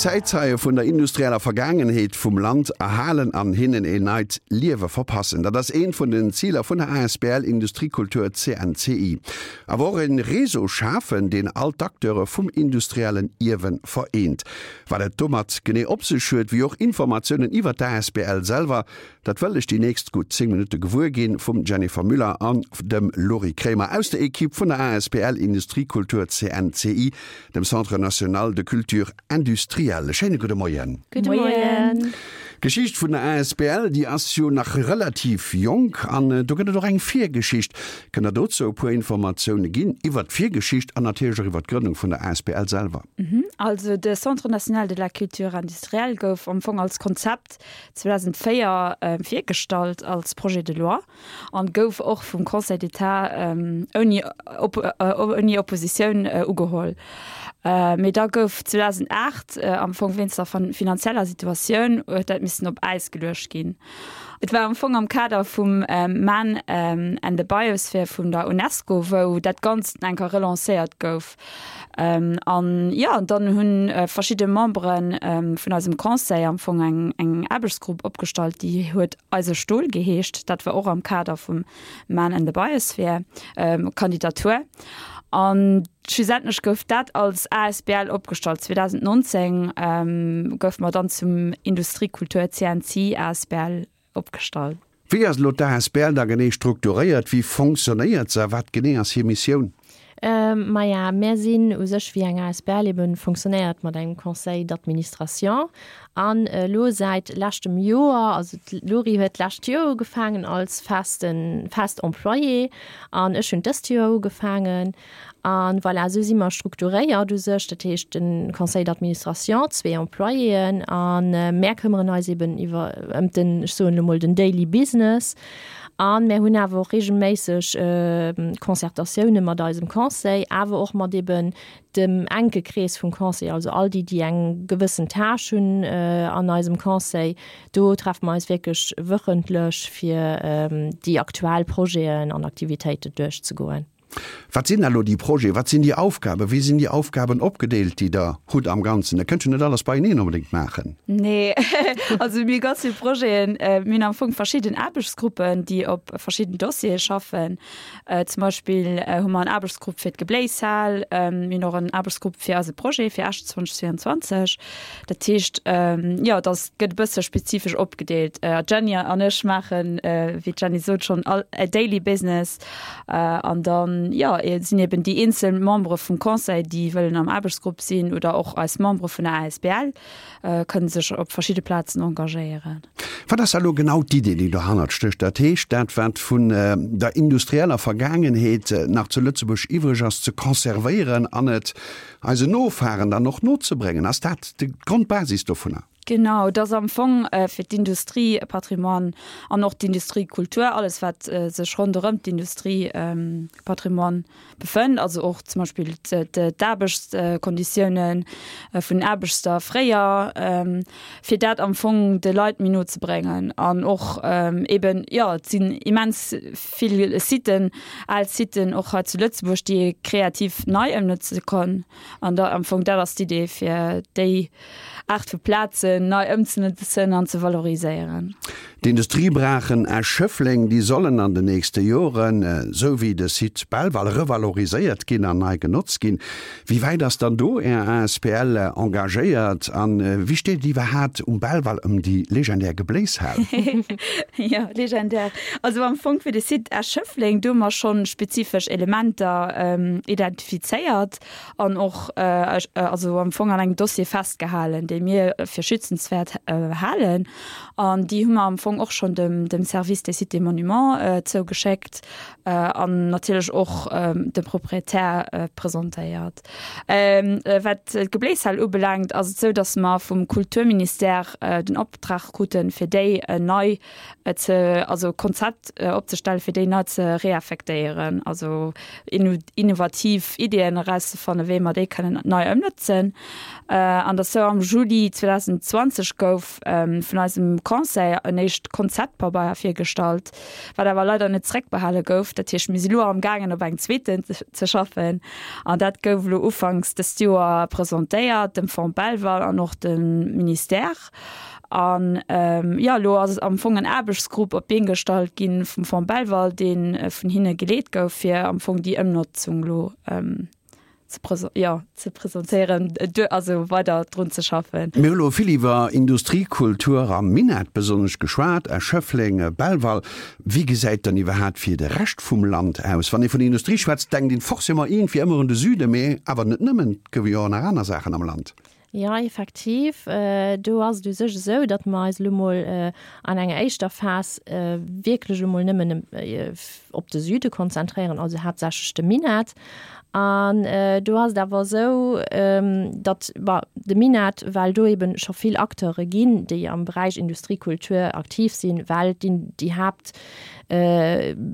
Zäitzeie vun der industrieller Vergaangenheet vum Land erhalen an hinnen een neit Liewe verpassen, dat ass eent vun den Ziler vun der asbl Industriekultur CNCI. Awer och e Réseau schafen, deen all d'Acteure vum industriellen Ierwe vereent. Wat et domat genee op sech huet, wéi och Informatiounen iwwer d'asbl selwer, Dat wëll ech déi nächst gutt 10 Minutte gewuer ginn vum Jennifer Müller an dem Lory Kremer aus der Equipe vun der asbl Industriekultur CNCI, dem Centre National de Culture Industrielle. Schéine gudde Moien. Gudde Moien. D'Geschicht vun der asbl, déi ass jo nach relativ jonk an do gëtt et och eng Virgeschicht. Kënnt der dozou e puer Informatioune ginn iwwert d'Virgeschicht an natierlech och iwwert d'Grënnung vun der asbl selwer? Also de Centre National de la Culture Industrielle gouf am Fong als Konzept 2004 virgestallt als Projet de loi an gouf och vum Conseil d'État ouni ouni Oppositioun ugeholl. Mee da gouf 2008 am Fong wéinst der finanzieller Situatioun huet dat missen op Äis geluecht ginn. Et war am Fong am Kader vum Man and the Biosphere vun der UNESCO, wou dat Ganzt eng Kéier relancéiert gouf. An jo, dann hu verschidde Membere vun eisem Conseil am Fong eng eng Aarbechtsgrupp opgestallt, déi huet Eise Stol geheescht. Dat war och am Kader vum Man and the Biosphere Kandidatur. An schlussendlech gouf dat als asbl opgestallt. 2019 goufe mer dann zum Industriekultur CNC asbl opgestallt. Wéi ass elo d'ASBL da genee strukturéiert? Wéi fonctionnéiert se a wat genee ass hir Missioun? Maja, mär sinn u sech wéi eng asbl eben fonctionnéiert mat engem Conseil d'administration an elo säit leschtem Joer, also d'Lory huet d'lescht Joer ugefaangen als festen, fest Employée an ech hunn dëst Joer ugefaangen. A voilà, esou si mer strukturéiert u sech. Dat heescht, de Conseil d'administration, zwee Employéen a mär këmmeren eis eben iwwer, ëm den, ech soen elo mol, den daily business. A mär hunn awer och regelméisseg Concertatioune mat eisem Conseil, awer och mat eben dem enke Krees vum Conseil, also all déi, déi eng gewëssen Tâche hunn an eisem Conseil. Do treffe mer eis wierklech wöchentlech, fir déi aktuell Projeten an Aktivitéiten duerchzegoen. Wat sinn da lo déi Projeten, wat sinn déi Aufgaben, wéi sinn déi Aufgaben opgedeelt, déi Der hutt am Ganzen? Der kënnt jo net alles beieneen onbedéngt maachen. Nee, also mir hu ganz vill Projeten. Mir hunn am Fong verschidden Aarbechtsgruppen, déi op verschidden Dossiere schaffen. Zum Beispill hu mer en Aarbechtsgrupp fir d'Gebléishal. Mir hunn och en Aarbechtsgrupp fir eise Projet fir Esch 2022. Dat heescht, jo, dat gëtt e bësse spezifesch opgedeelt. D'Jenny an ech maachen, wéi d'Jenny sot, schonn all daily business. An dann, jo, sinn eben déi eenzel Membere vum Conseil, déi wëllen am Aarbechtsgrupp sinn, oder och eis Membere vun der asbl kënne sech op verschidde Plazen engagéieren. Wat ass da elo genau d'Idee, déi dohannert stécht? Dat heescht, dat wat vun der industrieller Vergaangenheet nach zu Lëtzebuerg iwwreg ass, ze conservéieren an et eisen Nofahren dann och nozebréngen. Ass dat d'Grondbasis dovunner? Genau, et ass am Fong fir d'Industriepatrimoine an och d'Industriekultur, alles wat sech ronderëm d'Industriepatrimoine befënnt, also och zum Beispill d'Aarbechtskonditioune vun den Aarbechter fréier, fir dat am Fong de Leit méi no ze bréngen. An och eben, jo, et sinn immens vill Siten, al Siten och hei zu Lëtzebuerg, déi ee kreativ nei ëmnotze kann. An da am Fong dat ass d'Idee, fir déi Aart vu Plazen nei ëmzenotzen an ze valoriséieren. D'Industriebrachen Esch-Schëffleng, déi sollen an den nächste Joren, esou wéi de Site Belval, revaloriséiert ginn an nei genotzt ginn. Wéi wäit ass dann do Är asbl engagéiert an wéi steet et iwwerhaat um Belval ëm déi legendär Gebléishal? Jo, legendär. Also am Fong fir de Site Esch-Schëffleng, do hu mer schonn spezifesch Elementer identifizéiert. an och also am Fong an engem Dossier festgehalen, dee mir fir schützenswäert halen. An déi hu mer am Fong och schonn dem dem Service des Sites et Monuments zougeschéckt an natierlech och dem Proprietär presentéiert. Wat d'Gebléishal ubelaangt, ass et esou, datt mer vum Kulturministère den Optrag kruten, fir déi nei ze, also Konzept opzestellen, fir déi nei ze reaffektéieren, also innovativ Ideeën erauszefannen, wéi mer déi kënnen nei ëmnotzen. An dat sou am Juli 2022. 2020 gouf vun eisem Conseil en éischt Konzeptpabeier virgestallt, wat awer leider net zeréckbehale gouf. Dat heescht, mir si lo am gaangen op engem zweeten ze schaffen an dat gouf elo ufanks dëst Joer presentéiert dem Fonds Belval an och dem Ministère. An jo, elo ass am Fong en Aarbechtsgrupp op d'Been gestallt gi vum Fonds Belval, dee vun hinne geleet gouf, fir am Fong déi Ëmnotzung elo ze jo, ze presentéieren, also weider drun ze schaffen. Mir hu lo vill iwwer Industriekultur am Minett besonnesch geschwat, Esch, Schëffleng, Belval. Wéi gesäit dann iwwerhaat fir de Rescht vum Land aus? Wann ee vun Industrie schwätzt, denkt een forcément iergendwéi ëmmer un de Süden, mee awer net nëmmen, et goufe jo och nach aner Saachen am Land. Jo, effektiv. Do ass et u sech esou, datt mer eis elo mol an enger éischter Phas wierklech elo mol nëmmen op de Süde konzentréieren, also haaptsächlech de Minett. An do ass et awer esou, datt, bon, de Minett, well do eebe scho vill Acteure ginn, déi am Beräich Industriekultur aktiv sinn, well déi Haapt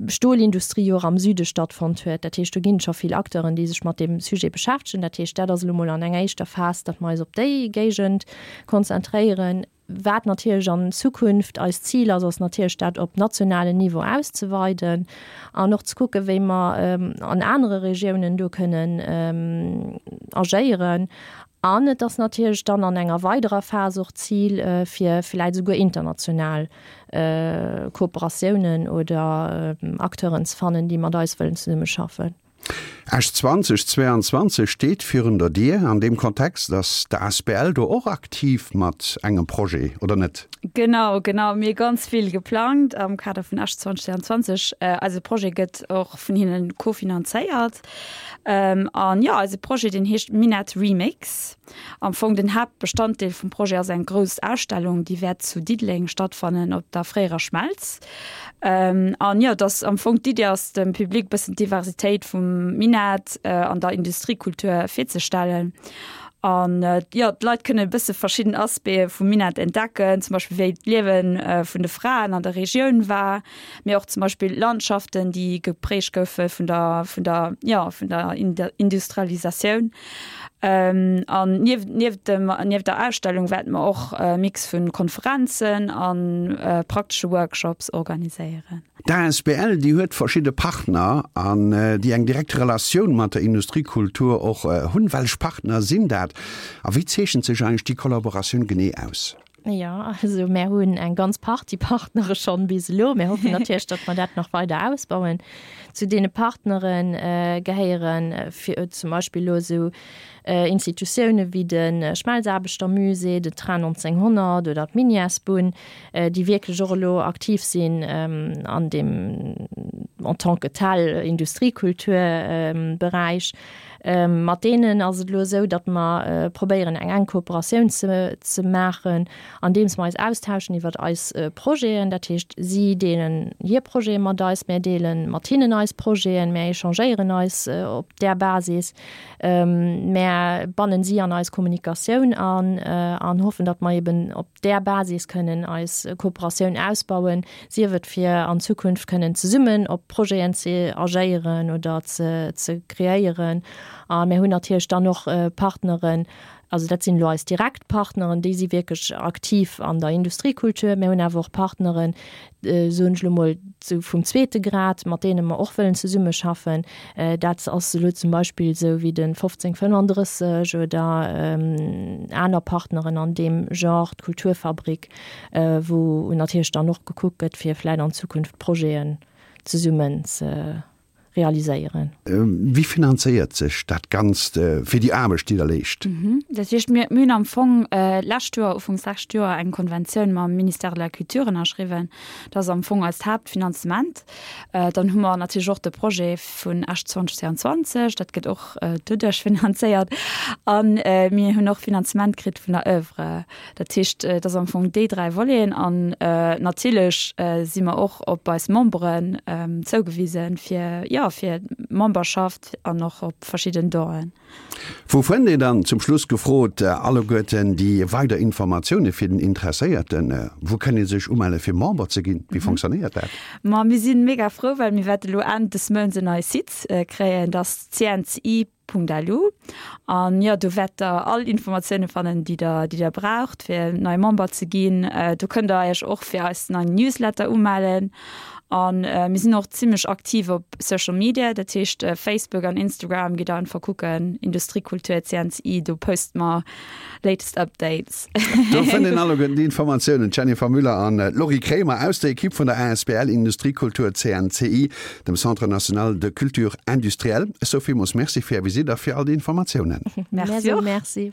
Stolindustrie jo och am Süde stattfonnt huet. Dat heescht, do ginn et scho vill Acteuren, déi sech mat deem Sujet beschäftegen. Dat heescht, dat ass elo mol an enger éischter Phas, datt mer eis op déi Géigend konzentréieren. Wat natierlech an Zukunft eist Zil ass, ass natierlech dat op nationalen Niveau auszeweiden an och ze kucken, wéi mer an anere Regiounen do kënnen agéieren. An et ass natierlech dann an enger weiderer Phas och d'Zil, fir vläicht esouguer international Kooperatiounen oder Acteuren ze fannen, déi mat eis wëllen zesummeschaffen. Esch 2022 steet virun der Dier. An deem Kontext ass d'ASBL do och aktiv mat engem Projet, oder net? Genau, genau. Mir hu ganz vill geplangt am Kader vun Esch 2022. Eise Projet gëtt och vun hinnen kofinanzéiert. An jo, eise Projet, deen heescht Minett Remix. Am Fong den Haaptbestanddeel vum Projet ass eng grouss Ausstellung, déi wäert zu Diddeleng stattfannen op der fréierer Schmelz. An jo, et ass am Fong d'Iddi ass dem Public bëssen d'Diversitéit vum Minett an der Industriekultur virzestellen. An jo, d'Leit kënne e bësse verschidden Aspecte vum Minett entdecken, zum Beispill wéi d'Liewe vun de Fraen an der Regioun war, mee och zum Beispill Landschaften, déi geprägt goufe vun der, vun der, jo, vun der Industrialisatioun. An nieft, nieft dem, nieft der Ausstellung wäerte mer och e Mix vu Konferenzen a praktesche Workshops organiséieren. D'asbl, déi huet verschidde Partner an déi eng direkt Relatioun mat der Industriekultur och hunn. Wellech Partner sinn dat a wéi zeechent sech eigentlech déi Kollaboratioun genee aus? Jo, also mär hunn eng ganz Partie Partnere schonn bis elo. Mir hoffen natierlech, datt mer dat nach weider ausbauen. Zu deene Partnere gehéiere fir zum Beispill elo esou Institutioune wéi de Schmelzaarbechtermusée, de Train 1900 oder d'Minièresbunn, déi wierklech och elo aktiv sinn an deem en tant que tel Industriekulturberäich. Mat deenen ass et elo esou, datt mer probéieren, eng enk Kooperatioun ze maachen, andeems mer eis austauschen iwwert eis Projeten. Dat heescht, si deelen hir Projete mat eis, mär deele mat hinnen eis Projeten, mär échangéieren eis op där Basis, mär bannen si an eis Kommunikatioun an an hoffen, datt mer eben op där Basis kënnen eis Kooperatioun ausbauen, sief et fir an Zukunft kënnen zesummen op Projeten ze agéieren oder ze ze kreéieren. A mir hunn natierlech dann och Partneren, also dat sinn elo eis direkt Partneren, déi si wierklech aktiv an der Industriekultur. Mir hunn awer och Partneren, soen ech elo mol, sou vum zweete Grad, mat deene mer och wëllen zesummeschaffen. Dat ass elo zum Beispill esou wéi de 1535 oder aner Partneren an deem Genre, d'Kulturfabrik, wou natierlech dann och gekuckt gëtt, fir vläicht an Zukunft Projeten zesummen ze realiséieren. Wie finanzéiert sech dat Ganzt fir déi Aarbecht, déi Der leescht? Dat heescht, mir hunn am Fong d'lescht Joer, ufanks lescht Joer, eng Konventioun mam Ministère de la Culture ënnerschriwwen. Dat ass am Fong eist Haaptfinanzement. Dann hu mer natierlech och de Projet vun Esch 2022, dat gëtt och doduerch finanzéiert. A mir hunn och Finanzement kritt vun der Oeuvre. Dat heescht, et ass am Fong déi 3 Voleten an natierlech si mer och op eis Memberen zougewisen, fir, jo, jo, fir d'Memberschaft an och op verschidden Donen. Wou fënnt een dann, zum Schluss gefrot, alleguerten déi weider Informatioune fir den Interesséierten? Wou kënn ee sech umelle fir Member ze ginn? Wéi fonctionnéiert dat? Ma mir si mega frou, well mir wäerte lo Enn des Mounts en neie Site kréien, dat ass cnci.lu. An jo, do wäert der all Informatioune fannen, déi der, déi der braucht, fir nei Member ze ginn. Do kënnt der Iech och fir eis neien Newsletter umellen. An mir sinn och zimmlech aktiv op Social Media, dat heescht Facebook an Instagram. Gitt einfach kucken, Industriekultur CNCI, do poste mer latest Updates. Do fënnt een alleguerten déi Informatiounen. D'Jennifer Müller an d'Laurie Kremer aus der Ekipp vun der asbl Industriekultur CNCI, dem Centre National de Culture Industrielle. Ech soe villmools Merci fir Är Visitt a fir all déi Informatiounen. Merci och. Merci.